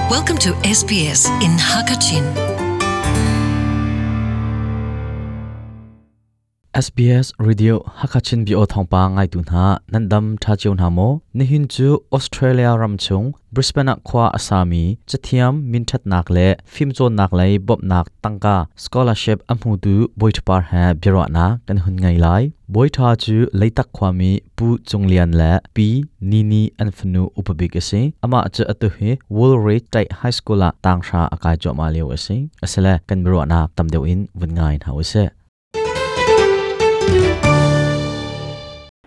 Welcome to SBS in Hakachin. SBS Radio Hakachin bio thawngpang ngaitu hna nan dam tha cio hna maw? Nihin cu Australia ram chung Brisbane ah khua a sami cathiam minthatnak le fimcawnnak lei bawmhnak tangka scholarship a hmutu Bawi Par he biaruahnak kan hun ngei lai. Bawi Tha cu Leitak khuami Pu Cung Lian le Pi Nini an fanu upa bik a si. Amah cu atu hi Woolridge State High School ah tanghra a kai cuahmah lio a si. Asile kan biaruahnak tam deuh in vun ngai hna usih.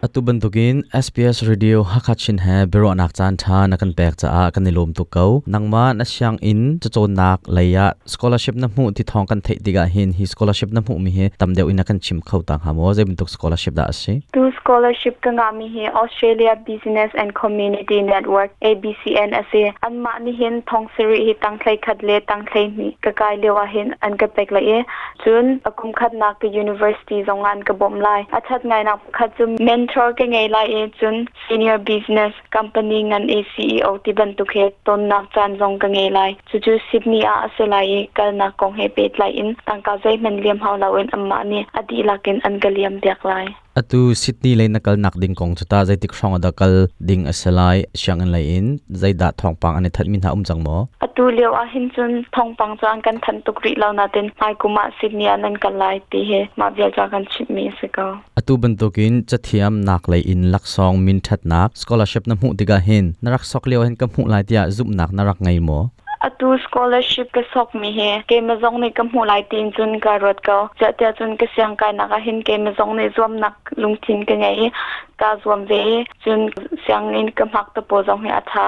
Atu bantukin SBS Radio Hakha Chin he biaruahnak caan ṭha na kan pek caah kan i lawm tuk ko. Nangmah na sianginn cacawnnak lei ah scholarship na hmuh ti thawng kan theih tikah hin hi scholarship na hmuhmi hi tam deuh in na kan chim kho ta hnga maw? Zei bantuk scholarship dah a si? Tu scholarship ka ngahmi hi Australia Business and Community Network ABCN a si. Anmah nih hin thong sarih hi tangthlei khat le tangthlei hnih ka kai lio ah hin an ka pek lai i cun a kum khatnak ka university zong ah an ka bawmh lai. A ṭhat ngainak pakhat cu mentor ka ngei lai i cun senior business company ngan i CEO ti bantuk he tonnak caan zong ka ngei lai. Cucu Sydney ah a si lai i kalnak kong he pehtlai in tangka zeihmanh liam hau loin anmah nih a dihlak in an ka liam piak lai. Atu Sydney lei na kalnak ding kong cu tah zeitik hrawng ah dah kal ding a si lai? Sianginn lei in zeidah thawngpang an i thanhmi hna um cang maw? Atu lio ah hin cun thawngpang cu an kan thanh tuk rih lo nain hmaikum ah Sydney ah nan kal lai ti hi mah vial ca kan chimhmi a si ko. Atu bantukin cathiam nak lei in laksawng min ṭhatnak scholarship na hmuh tikah hin na rak sok lio hin ka hmuh lai tiah zumhnak na rak ngei maw? Atu scholarship ka sokmi hi keimah zong nih ka hmuh lai tiin cun ka ruat ko. Ziah cun ka siangkainak ah hin keimah zong nih zuamnak lungthin ka ngei i kaa zuam ve i cun sianginn ka hmak te pawl zong hi a ṭha.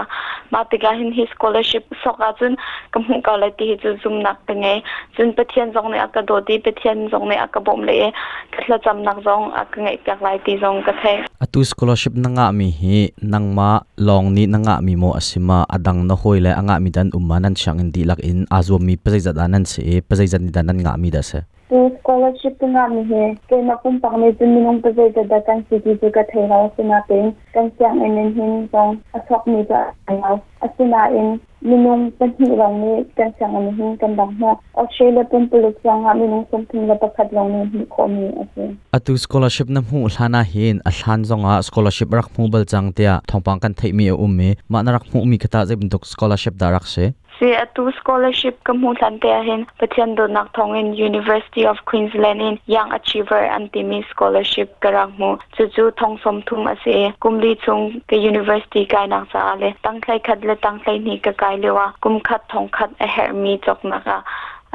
Mah tikah hin hi scholarship sok ahcun ka hmuh ko lai ti hi cu zumnak ka ngei. Cun Pathian zong nih a ka dawt i Pathian zong nih a ka bawmh le i ka thlacamnak zong a ka ngaihpiak lai ti zong ka theih. Atu scholarship na ngahmi hi nangmah lawng nih na ngahmi maw a si ma a dang na hawi le a ngahmi dan um ma nan sianginn dihlak in aa zuammi pazeizat ah nan si i pazeizat nih dah nan ngahmi dah si? Tu scholarship ka ngahmi hi keimah pumpak nih cun minung pazeizat dah kan si ti cu ka thei lo. Asinain kan sianginn in hin zong a sawkmi cu a lo. Asinain minung pahnih lawng nih kan sianginn hin kan rak hmuh. Australia pumpuluk zongah minung 31 lawng nih hmuh khawhmi a si. Atu scholarship na hmuh hlan ah hin a hlan zongah scholarship rak hmu bal cang tiah thawngpang kan theihmi a um i mah na rak hmuhmi kha tah zei bantuk scholarship dah rak si? Si atu scholarship ka hmuh hlan te ahhin Pathian dawtnak thawngin University of Queensland in Young Achiever an timi scholarship ka rak hmu. Cucu thong 30 a si i kum li chung ka university kainak caah le tangthlei khat le tangthlei hnih ka kai lio ah kum khat thong khat a herhmi cawknak ah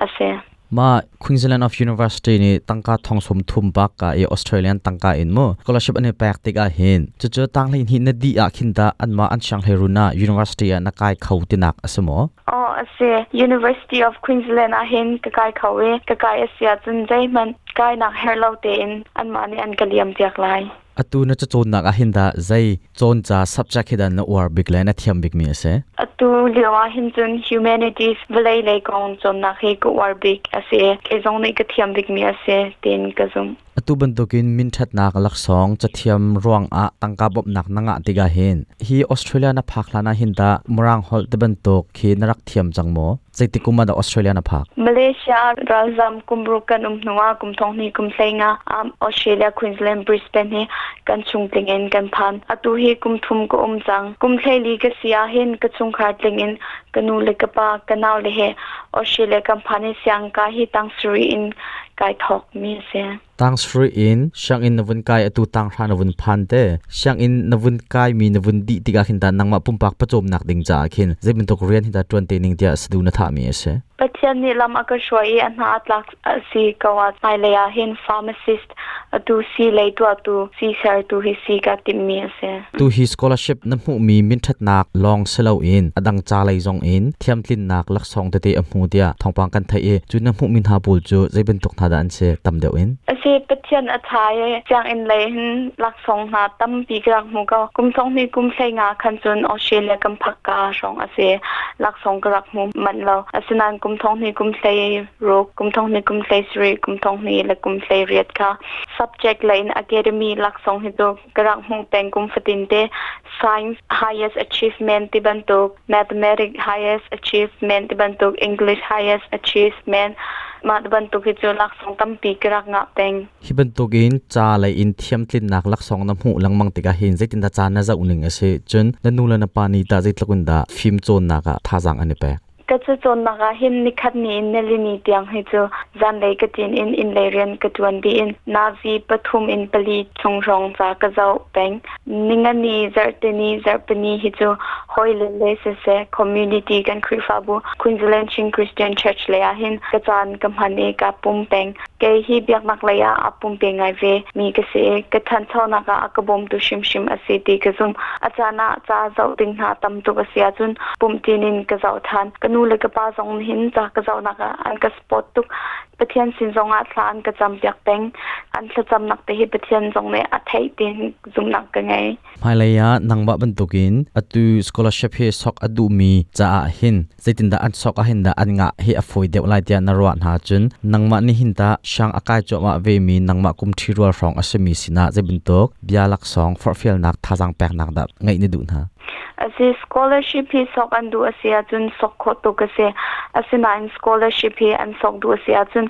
a si. Ma Queensland of University nih tangka thong 30 bak ka i Australian tangka in mu scholarship an i pek tikah hin cucu tanghlei hnih na dih ah khin ta anmah an sianghleirun ah university ah na kai kho tinak a si maw? Aw a si. University of Queensland ah hin ka kai kho i ka kai a si ahcun zeihmanh kainak herh lo tein anmah nih an ka liam piak lai. Atu na cacawnnak ah hin dah zei cawn ca subject hi dah na uar bik le na thiam bikmi a si? Atu lio ah hin cun humanities vawlei lei kong cawnnak hi ka uar bik a si. Kei zong nih ka thiam bikmi a si tiin ka zumh. Atu bantukin minṭhatnak laksawng cathiam ruangah tangka bawmhnak na ngah tikah hin hi Australia na phak hlan ah hin tah Mirang holh ti bantuk khi na rak thiam cang maw? Zeitik kum ah dah Australia na phak? Malaysia ralzam kum ruk kan um hnu ah kum thong hnih kum hlei nga Australia Queensland Brisbane hi kan chung tling in kan phan. Atu hi kum thum ka um cang. Kum hleili ka si ah hin ka chungkhar tling in ka nu le ka pa ka nau le he Australia kan phan i siangka hi tang sarih in kai thawk mi a si. Tang sarih in sianginn na vun kai atu tang hra na vun phan te sianginn na vun kai mi na vun dih tikah khin ta nangmah pumpak pawcawmnak ding caah khin zei bantuk rian hi dah ṭuan te ning tiah sadu na thah mi a si. Pathian nih lam a ka hruai i a hna a tlak a si ko ah hmailei ah hin pharmacist atu si lei tuahtu si sertu hi si ka timhmi a si. Tu hi scholarship na hmuhmi minṭhatnak lawng si loin a dang ca lei zong in thiamtlinnak laksawng tete a hmu tiah thawngpang kan theih i cu na hmuhmi hna pawl cu zei bantuk hna hna dah an si tam deuh in? Asi Pathian a tha i sianginn lei hin laksawng hna tampi ka rak hmu ko. Kum thong hnih kum hlei nga khan cun Australia kan phak ka hrawng a si. Laksawng ka rak hmu manh lo. Asinain kum thong hnih kum hlei ruk, kum thong hnih kum hlei sarih, kum thong hnih le kum hlei riat kha subject lei in academy laksawng hi cu ka rak hmuh peng kum fatin te science highest achievement ti bantuk mathematics highest achievement ti bantuk English highest achievement mah bantuk hi cu laksawng tampi ka rak ngah peng. Hi bantukin ca lei in thiamtlinnak laksawng na hmuh lengmang tikah hin zeitindah ca na zoh ning a si? Cun na nu le na pa nih tah zeitluk in dah fim cawnnak ah thazaang an i pek? Ka cacawnnak ah hin nikhat ni in nilini tiang hi cu zanlei ka ṭin in innlei rian ka ṭuan dih in nazi pathum in pali chung hrawng ca ka zoh peng. Ningani, zarhteni, zarhpini hi cu hawile le siseh community kan Khrihfabu Queensland Chin Christian Church lei ah hin ka caan ka hman i kaa pum peng. Kei hi biaknak lei ah a pumpe ngai ve mi ka si i ka ṭhanchonak ah a ka bawmtu hrimhrim a si ti ka zumh. A caan ah ca zoh ding hna tam tuk a si ahcun pumhṭin in ka zoh ṭhan. Ka nu le ka pa zong nih ca ka zohnak ah an ka support tuk. Pathian sin zong ah thla an ka campiak peng. An thlacamnak te hi Pathian zong nih a theih tiin zumhnak ka ngei. Hmailei ah nangmah bantukin atu scholarship hi sok a duhmi caah hin zeitindah an sok ah hin dah an ngah hi a fawi deuh lai tiah na ruah hna cun nangmah nih hin tah siang a kai cuahmah vemi nangmah kum ṭhi rual hrawng a simi sinah zei bantuk bia laksawng forhfialnak thazaang peknak dah ngeih na duh hna? Asi scholarship hi sok an duh a si ahcun sok khawh tuk a si. Asinain scholarship hi an sok duh a si ahcun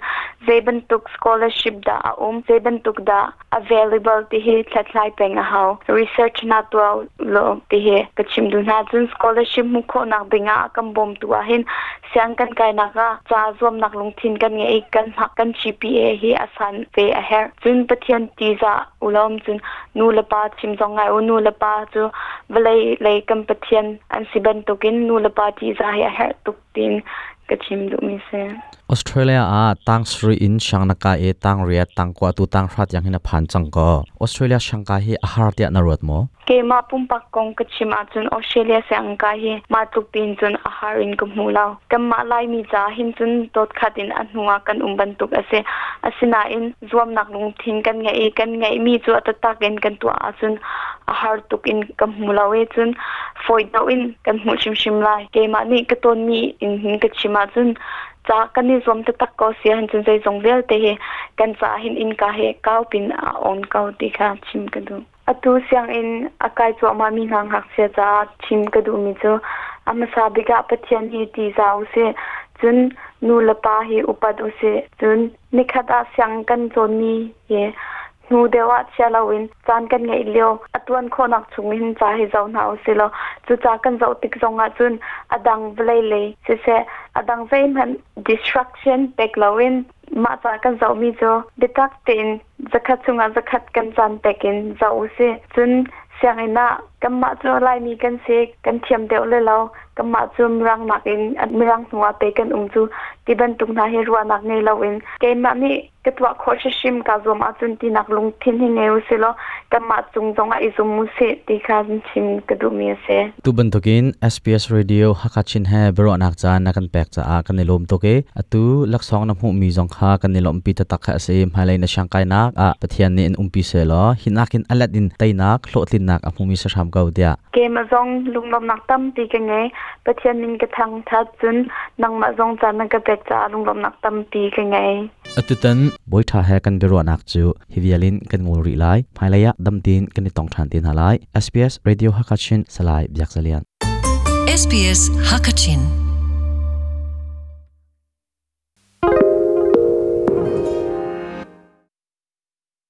zei bantuk scholarship dah a um, zei bantuk dah available ti hi hlathlai peng a hau. Research na tuah lo ti hi ka chim duh hna. Cun scholarship hmuh khawhnak ding ah kan bawmtu ah hin siang kan kainak ah ca zuamnak lungthin kan ngei kan hmak kan GPA hi a san ve a herh. Cun Pathian tizah ulawm cun nu le pa chim zong ngai u nu le pa cu vawlei lei kan Pathian an si bantukin nu le pa tizah hi a herh tuk tiin ka chim duhmi si. Australia ah tang sarih in siang na kai i tang riat, tang kua tu tang hra tiang hin a phan cang ko. Australia siangka hi a har tiah na ruat maw? Keimah pumpak kong ka chim ahcun Australia siangka hi mah tluk tiin cun a har in ka hmu lo. Kanmah Laimi caah hin cun dawt khat in a hnu ah kan um bantuk a si. Asinain zuamnak lungthin kan ngeih i kan ngeihmi cu a taktak in kan tuah ahcun a har tuk in ka hmu lo i cun fawi deuh in kan hmuh hrimhrim lai. Keimah nih ka tawnmi in hin ka chim ahcun ca kan i zuam taktak ko si ahcun zeizong vialte hi kan caah hin innka hi kau pin a on ko ti kha chim ka duh. Atu sianginn a kai cuahmahmi hna ngakchia caah chim ka duhmi cu a hmasa bik ah Pathian hi ṭihzah usih, cun nu le pa hi upat usih. Cun nikhat ah siang kan cawnmi hi hnu deuh ah chia loin caan kan ngeih lio a tuan khawhnak chung hin ca hi zoh hna usih law cu ca kan zoh tik zong ah cun a dang vawlei lei siseh a dang zeihmanh distraction pek loin mah ca kan zohmi cu biatak tein zakhat chungah zakhat kan caan pek in zoh usih. Cun sianginn ah kanmah cu Laimi kan si, kan thiam deuh le lo, kanmah cu Mirang nakin Mirang hnu ah pei kan um cu ti bantuk hna hi ruahnak ngei loin keimah nih ka tuah khawh hrimhrim kaa zuam ahcun tinak lungthin hi ngei usih law kanmah cung zongah i zum usih ti kha chim ka duhmi a si. Tu bantukin SBS Radio Hakha Chin he biaruahnak caan na kan pek caah kan i lawm tuk i atu laksawng na hmuhmi zong kha kan i lawmhpi taktak kha a si. Hmailei na siangkainak ah Pathian nih in umpi sehlaw hinak in a let in teinak hlawhtlinnak a hmumi si hram ko tiah. Keimah zong lunglawmhnak tampi ka ngei. Pathian min ka thangthat cun nangmah zong caan na ka pek caah lunglawmhnak tampi ka ngei. Atutan Bawiṭha he kan biaruahnak cu hi vial in kan ngol rih lai. Hmailei ah dam tein kan i tong ṭhan te hna lai. SBS Radio Hakachin Salai Biak Zalian. SBS Hakachin.